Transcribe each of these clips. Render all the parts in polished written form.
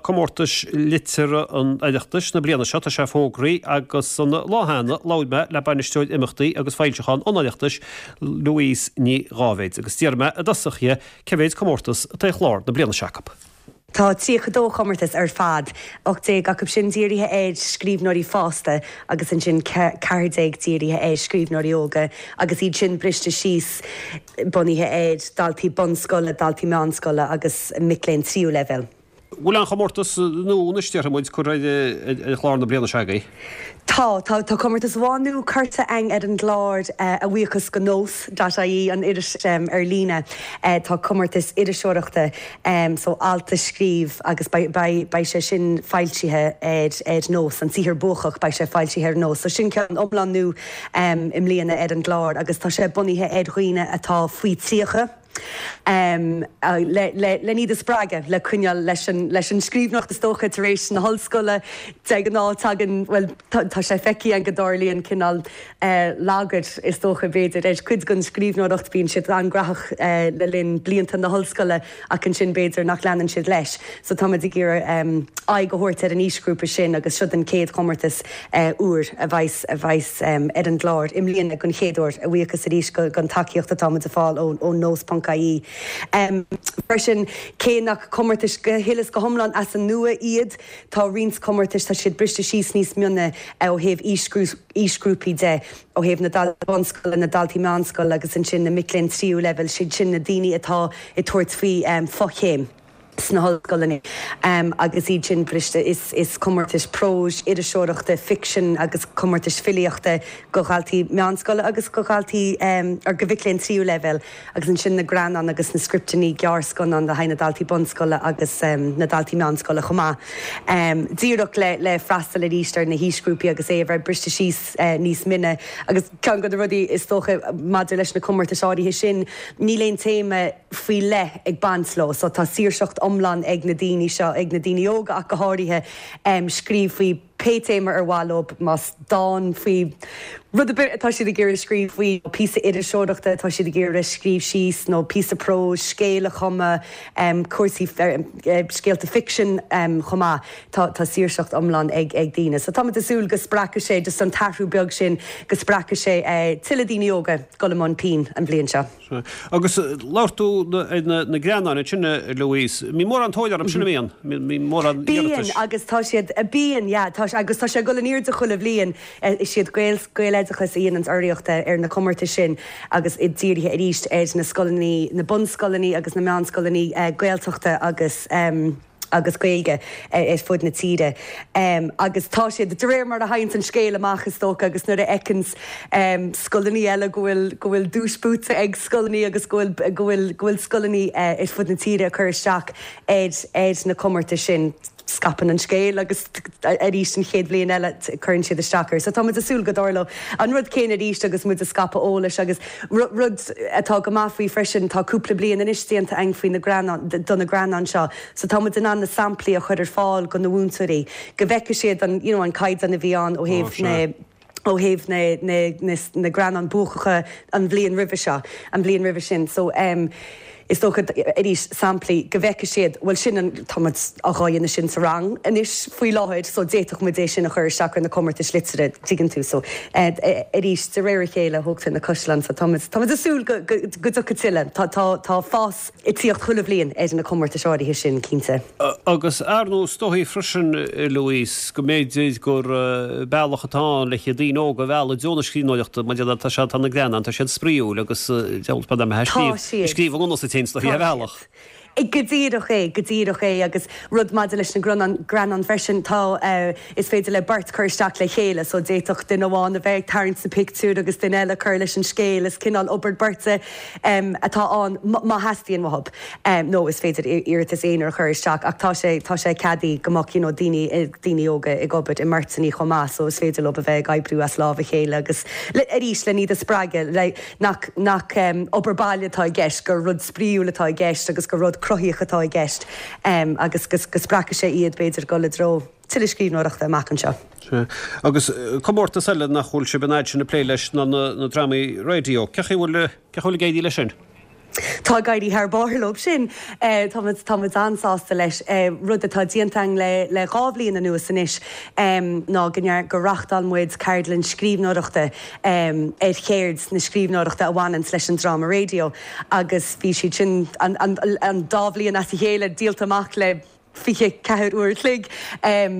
comórtais liteartha an Oireachtais na bliana seo, tá sé fógraithe agus an lá cheana labhair mé le Bainisteoir Imeachtaí agus Foilseachán an Oireachtais, Louise Ní Dháibhéid, agus d'iarr mé i dtosach dhi cé mhéid comórtas atá ar chlár na bliana seo acu. Tá 32 chomórtas ar fad, 18 acu sin dírithe ar scríbhneoirí fásta agus ansin 14 dírithe ar scríbhneoirí óga agus iad sin briste síos bunaithe ar dhaltaí bunscoile, daltaí meánscoile agus mic léinn tríú leibhéal. Bhfuil aon chomórtas nua anois, déarfaidh muid, curtha ar chlár na bliana seo agaibh? Tá, tá, tá comórtas amháin nua curtha againn ar an gclár, a bhuíochas go Nós dot ie, an iris ar líne. Tá comórtas iriseoireachta, so alt a scríobh agus beidh, beidh, beidh sé sin foilsithe ar, ar Nós, an saothar buacach, beidh sé foilsithe ar Nós. So sin ceann iomlán nua i mbliana ar an gclár agus tá sé bunaithe ar dhaoine atá faoi 30. Len iad a spreagadh le coinneáil leis an scríbhneoireacht is dócha tar éis na hollscoile. De ghnáth tagann, bhuel tá sé feicthe againn go dtarlaíonn cineál lagar is dócha b'fhéidir ar chuid den scríbhneoireacht, bíonn siad an-ghnóthach le linn blianta na hollscoile ach ansin b'fhéidir nach leanann siad leis. So táimid ag iarraidh aghaidh a thabhairt ar an aoisghrúpa sin agus seo an chéad chomórtas úr a bheas a bheas ar an gclár i mbliana den chéad uair, a bhuíochas arís don tacaíocht atá muid ag fáil ó Nós ponc ie. Freisin, cé nach comórtais go huile is go hiomlán as an nua iad, tá roinnt comórtais, tá siad briste síos níos mine ó thaobh aoisghrúpaí de, ó thaobh na daltaí bunscoile, na daltaí meánscoile agus ansin na mic léinn tríú leibhéal, siad sin na daoine atá ag tabhairt faoi fochéim. sna hollscoileanna agus iad sin briste. Is comórtais próis, iriseoireachta, ficsin agus comórtais filíochta go dhaltaí meánscoile agus go dhaltaí or go mhic léinn tríú leibhéal agus ansin na greannáin agus na scripteanna gearrscannán le haghaidh na daltaí bunscoile agus na daltaí meánscoile chomh maith. Díreach le le freastal arís ar na haoisghrúpaí agus é a bheith briste síos níos mine agus ceann de na rudaí is dócha maidir leis na comórtais áirithe sin níl aon téama faoi leith ag baint leo. So tá saoirseacht iomlán ag na daoine seo, ag na daoine óga ach go háirithe, scríobh faoi pé téama ar mhaith leo, más dán faoi rud ar bith atá siad ag iarraidh scríobh faoi, nó píosa iriseoireachta atá siad ag iarraidh scríobh síos, nó píosa próis, scéal a chumadh, cúrsaí, scéalta ficsin chomh maith. Tá tá saoirseacht iomlán ag ag daoine. So táimid ag súil go spreagfaidh sé just an t-athrú beag sin, go spreagfaidh sé tuilleadh daoine óga dul i mbun pinn an bhliain seo. Agus labhair tú ar na greannáin ansin, a Louise. Mbíonn mórán tóir orthu sin, an mbíonn? Mbíonn mórán iarratais? Bíonn, agus tá siad, bíonn, yeah, tá, agus tá sé ag dul in airde chuile bhliain. Is iad Gael, Gaeloideachas a dhéananns urraíocht ar na comórtais sin agus iad dírithe arís ar na scoileanna, na bunscoileanna agus na meánscoileanna Gaeltachta agus. agus Gaeilge ar fud na tíre. Agus tá siad, de réir mar a thaganns an scéal amach is dócha agus nuair a fheiceanns scoileanna eile go bhfuil, go bhfuil duais buaite ag scoileanna agus go bhfuil, go bhfuil, go bhfuil scoileanna ar fud na tíre ag cur isteach ar, ar na comórtais sin, scaipeann an scéal agus arís an chéad bhliain eile cuireann siad isteach air. So tá muid ag súil go dtarlóidh an rud céanna arís agus muid ag scaipeadh eolais agus rud atá go maith faoi freisin, tá cúpla bliain anois déanta againn faoi na greannáin, do na greannáin seo so tá muid in ann na samplaí a chur ar fáil go na mhúinteoirí go bhfeicfidh siad an you know an caighdeán a bhí ann ó thaobh na ó thaobh na na na na greannáin buacacha an bhliain roimhe seo, an bhliain roimhe sin. So em is dócha arís samplaí go bhfeicfidh siad bhuel sin an tá muid á dhéanamh sin sa rang anois faoi láthair so d'fhéadfadh muid é sin a chur isteach ar na comórtais liteartha tuigeann tú so eh arís de réir a chéile thógtar na caisleáin so tá muid tá muid ag súil go go go dtiocfaidh tuilleadh tá tá tá fás ag tíocht chuile bhliain ar na comórtais áirithe sin, cinnte. Agus ar ndóigh, is dóichí freisin, Louise, go mb'fhéidir gur bealach atá ann le daoine óga a mhealladh i dtreo na scríbhneoireachta, mar tá sé, tá na greannáin, tá siad spraíúil agus deabhal spad am a scríobh i ngnó sa tséin, is dóichí, ar bhealach. Go díreach é, go díreach é agus rud maidir leis na greannáin freisin, tá, is féidir le beirt cur isteach le chéile so d'fhéadfadh duine amháin a bheith ag tarraingt na pictiúr agus duine eile cur leis an scéal, is cineál obair beirte atá ann má theastaíonn uathub nó is féidir iarratas aonair a chur isteach ach tá sé, tá sé ceadaithe go mbeadh you know daoine, daoine óga ag obair i mbeirteanna chomh maith so is féidir leo a bheith ag oibriú as lámh a chéile agus le, arís le iad a spreagadh le nach, nach obair baile atá i gceist, gur rud spraíúil atá i gceist agus gur rud cruthaíoch atá i gceist agus go, go spreagfaidh sé iad b'fhéidir dul i dtreo tuilleadh scríbhneoireachta amach anseo. Sea. Agus comórtas eile nach bhfuil sibh an fhad sin ag plé leis ná na drámaí raidió. Cén chaoi a bhfuil, cén chaoi a bhfuil ag éirí leis sin? Tá ag éirí thar barr leo sin. Tá muid, tá muid an-sásta leis. Rud atá déanta againn le, le 2 bhliain anuas anois ná go ndear, gur reachtáil muid ceardlann scríbhneoireachta ar cheird na scríbhneoireachta a bhaineanns leis an dráma raidió agus bhí siad sin an, an, an dá bhliain as a chéile díolta amach le 24 uair a chloig.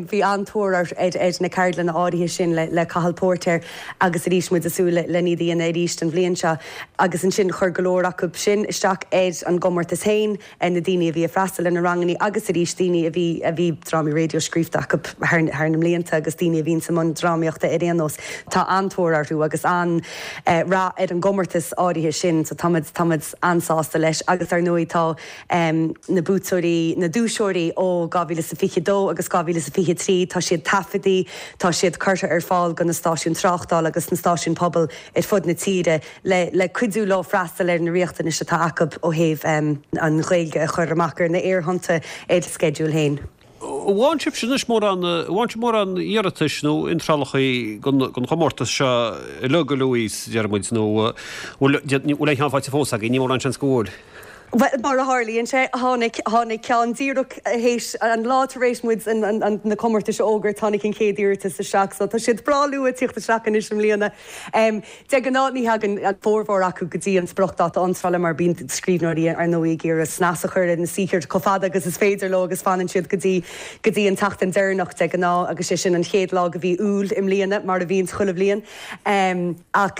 Bhí an-tóir ar na ceardlanna áirithe sin le Cathal Póirtéir agus arís muid ag súil len iad a dhéanamh arís an bhliain seo. Agus ansin chuir go leor acu sin isteach ar an gcomórtas féin, na daoine a bhí ag freastal ar na ranganna agus arís daoine a bhí a bhí drámaí raidió scríofa acu thar na mblianta agus daoine a bhíonns i mbun drámaíochta ar aon nós. Tá an-tóir orthu agus an-rath ar an gcomórtas áirithe sin so tá muid tá muid an-sásta leis agus ar ndóigh tá na buaiteoirí, na duaiseoirí ó 2022 agus 2023, tá siad taifeadtaí, tá siad curtha ar fáil do na stáisiúin tráchtála agus na stáisiúin pobail ar fud na tíre le le cuidiú leo freastal ar na riachtanais atá acu ó thaobh an Ghaeilge a chur amach ar na aerthonnta ar a sceideal féin. An bhfaigheann sibhse anois mórán, an bhfaigheann sibh mórán iarratais nó iontrálacha don chomórtas seo uilig, a Louise, deir muid, nó bhfuil, bhfuil aon cheann faighte fós agaibh? Níl mórán seans go bhfuil. Bhuel, mar a tharlaíonn sé, tháinig, tháinig ceann díreach théis, an lá tar éis muid an, an, na comórtais a fhógairt, tháinig an chéad iarratas isteach, so tá siad breá luath ag tíocht isteach anois i mbliana. De ghnáth ní thagann an formhór acu go dtí an spriocdháta iontrála mar bíonn scríbhneoirí ar ndóigh ag iarraidh snas a chur ar na saothair chomh fada agus is féidir leo agus fanann siad go dtí go dtí an tseachtain deireanach de ghnáth agus sé sin an chéad lá de mhí Iúil i mbliana mar a bhíonns chuile bhliain. Ach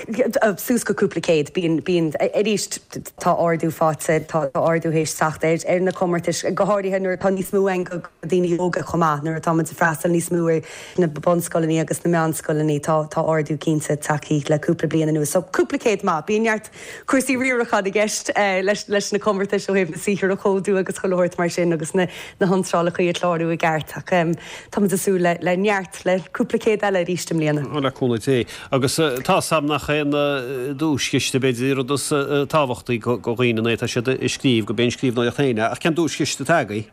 suas go cúpla céad bíonn bíonn arís tá ardú faighte tá ardú théis teacht ar ar na comórtais go háirithe nuair atá níos mó ann do dhaoine óga chomh maith nuair atá muid ag freastal níos mó ar na bunscoileanna agus na meánscoileanna, tá tá ardú cinnte tagtha le cúpla bliain anuas. So cúpla céad maith. Bíonn neart cúrsaí riaracháin i gceist leis leis na comórtais ó thaobh na saothair a chomhdú agus chuile shórt mar sin agus na na hiontrálacha a chlárú i gceart. Ach tá muid ag súil le le neart, le cúpla céad eile arís i mbliana. Le cúnamh Dé. Agus tá 's a'm nach é an duaischiste b'fhéidir an rud is tábhachtaí do dhaoine nuair atá siad ag scríobh, gurb é an scríbhneoireacht féin é. Ach cén duaischiste atá agaibh?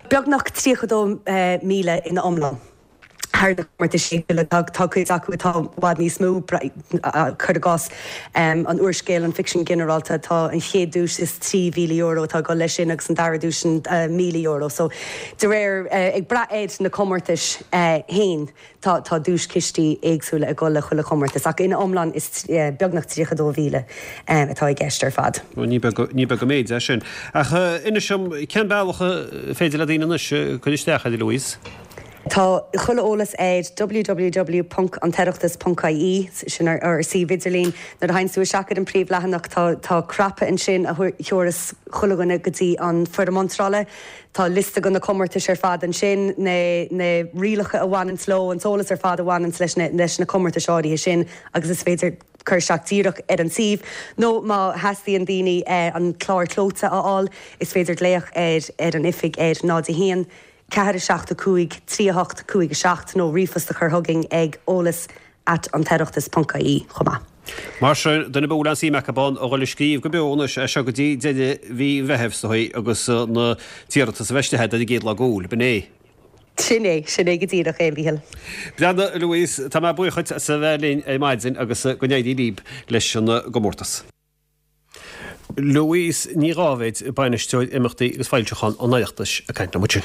Beagnach 32,000 ina iomlán thar na comórtais éagsúla. Tá cuid acu atá i bhfad níos mó, cuir i gcás an úrscéal, an ficsean ginearálta, tá an chéad duais is €3,000 atá ag dul leis sin agus an dara duais €1,000. So de réir, ag brath ar na comórtais féin. Tá tá duaischistí éagsúla ag dul le chuile chomórtas ach ina iomlán is beagnach 32,000 atá i gceist ar fad. Bhuel ní beag ní beag an méid é sin. Ach inis dom, cén bealach féidir le daoine anois cur isteach air, a Louise? Tá chuile eolas ar www.antoireachtas.ie, sin ár ár suíomh idirlín. Nuair a théanns tú isteach ar an príomhleathanach tá tá cnaipe ansin a thiúrfas chuile dhuine go dtí an foirm iontrála. Tá liosta de na comórtais ar fad ansin, na na rialacha a bhaineanns leo, an t-eolas ar fad a bhaineanns leis na leis na comórtais áirithe sin agus is féidir cur isteach díreach ar an suíomh nó má theastaíonn daoine an clár clóite a fháil is féidir glaoch ar ar an oifig ar 0 1 4 7 5 3 8 5 7 nó ríomhphost a chur chugainn ag eolas at antoireachtas ponc ie chomh maith. Mar sin, duine ar bith a bhfuil aon suim acu ann a dhul ag scríobh go beo anois as seo go dtí deireadh mhí an Mheithimh is dóigh agus na t-iarratas a bheith istigh ar an gcéad lá d'Iúil, b'in é? Sin é, sin é go díreach é, a Mhíchíl. Breathnaigh, a Louise, tá mé buíoch dhuit as a bheith linn ar maidin agus go n-éirí libh leis an gcomórtas. Louise Ní Dháibhéid, Bainisteoir Imeachtaí agus Foilseachán an Oireachtais ag caint liom ansin.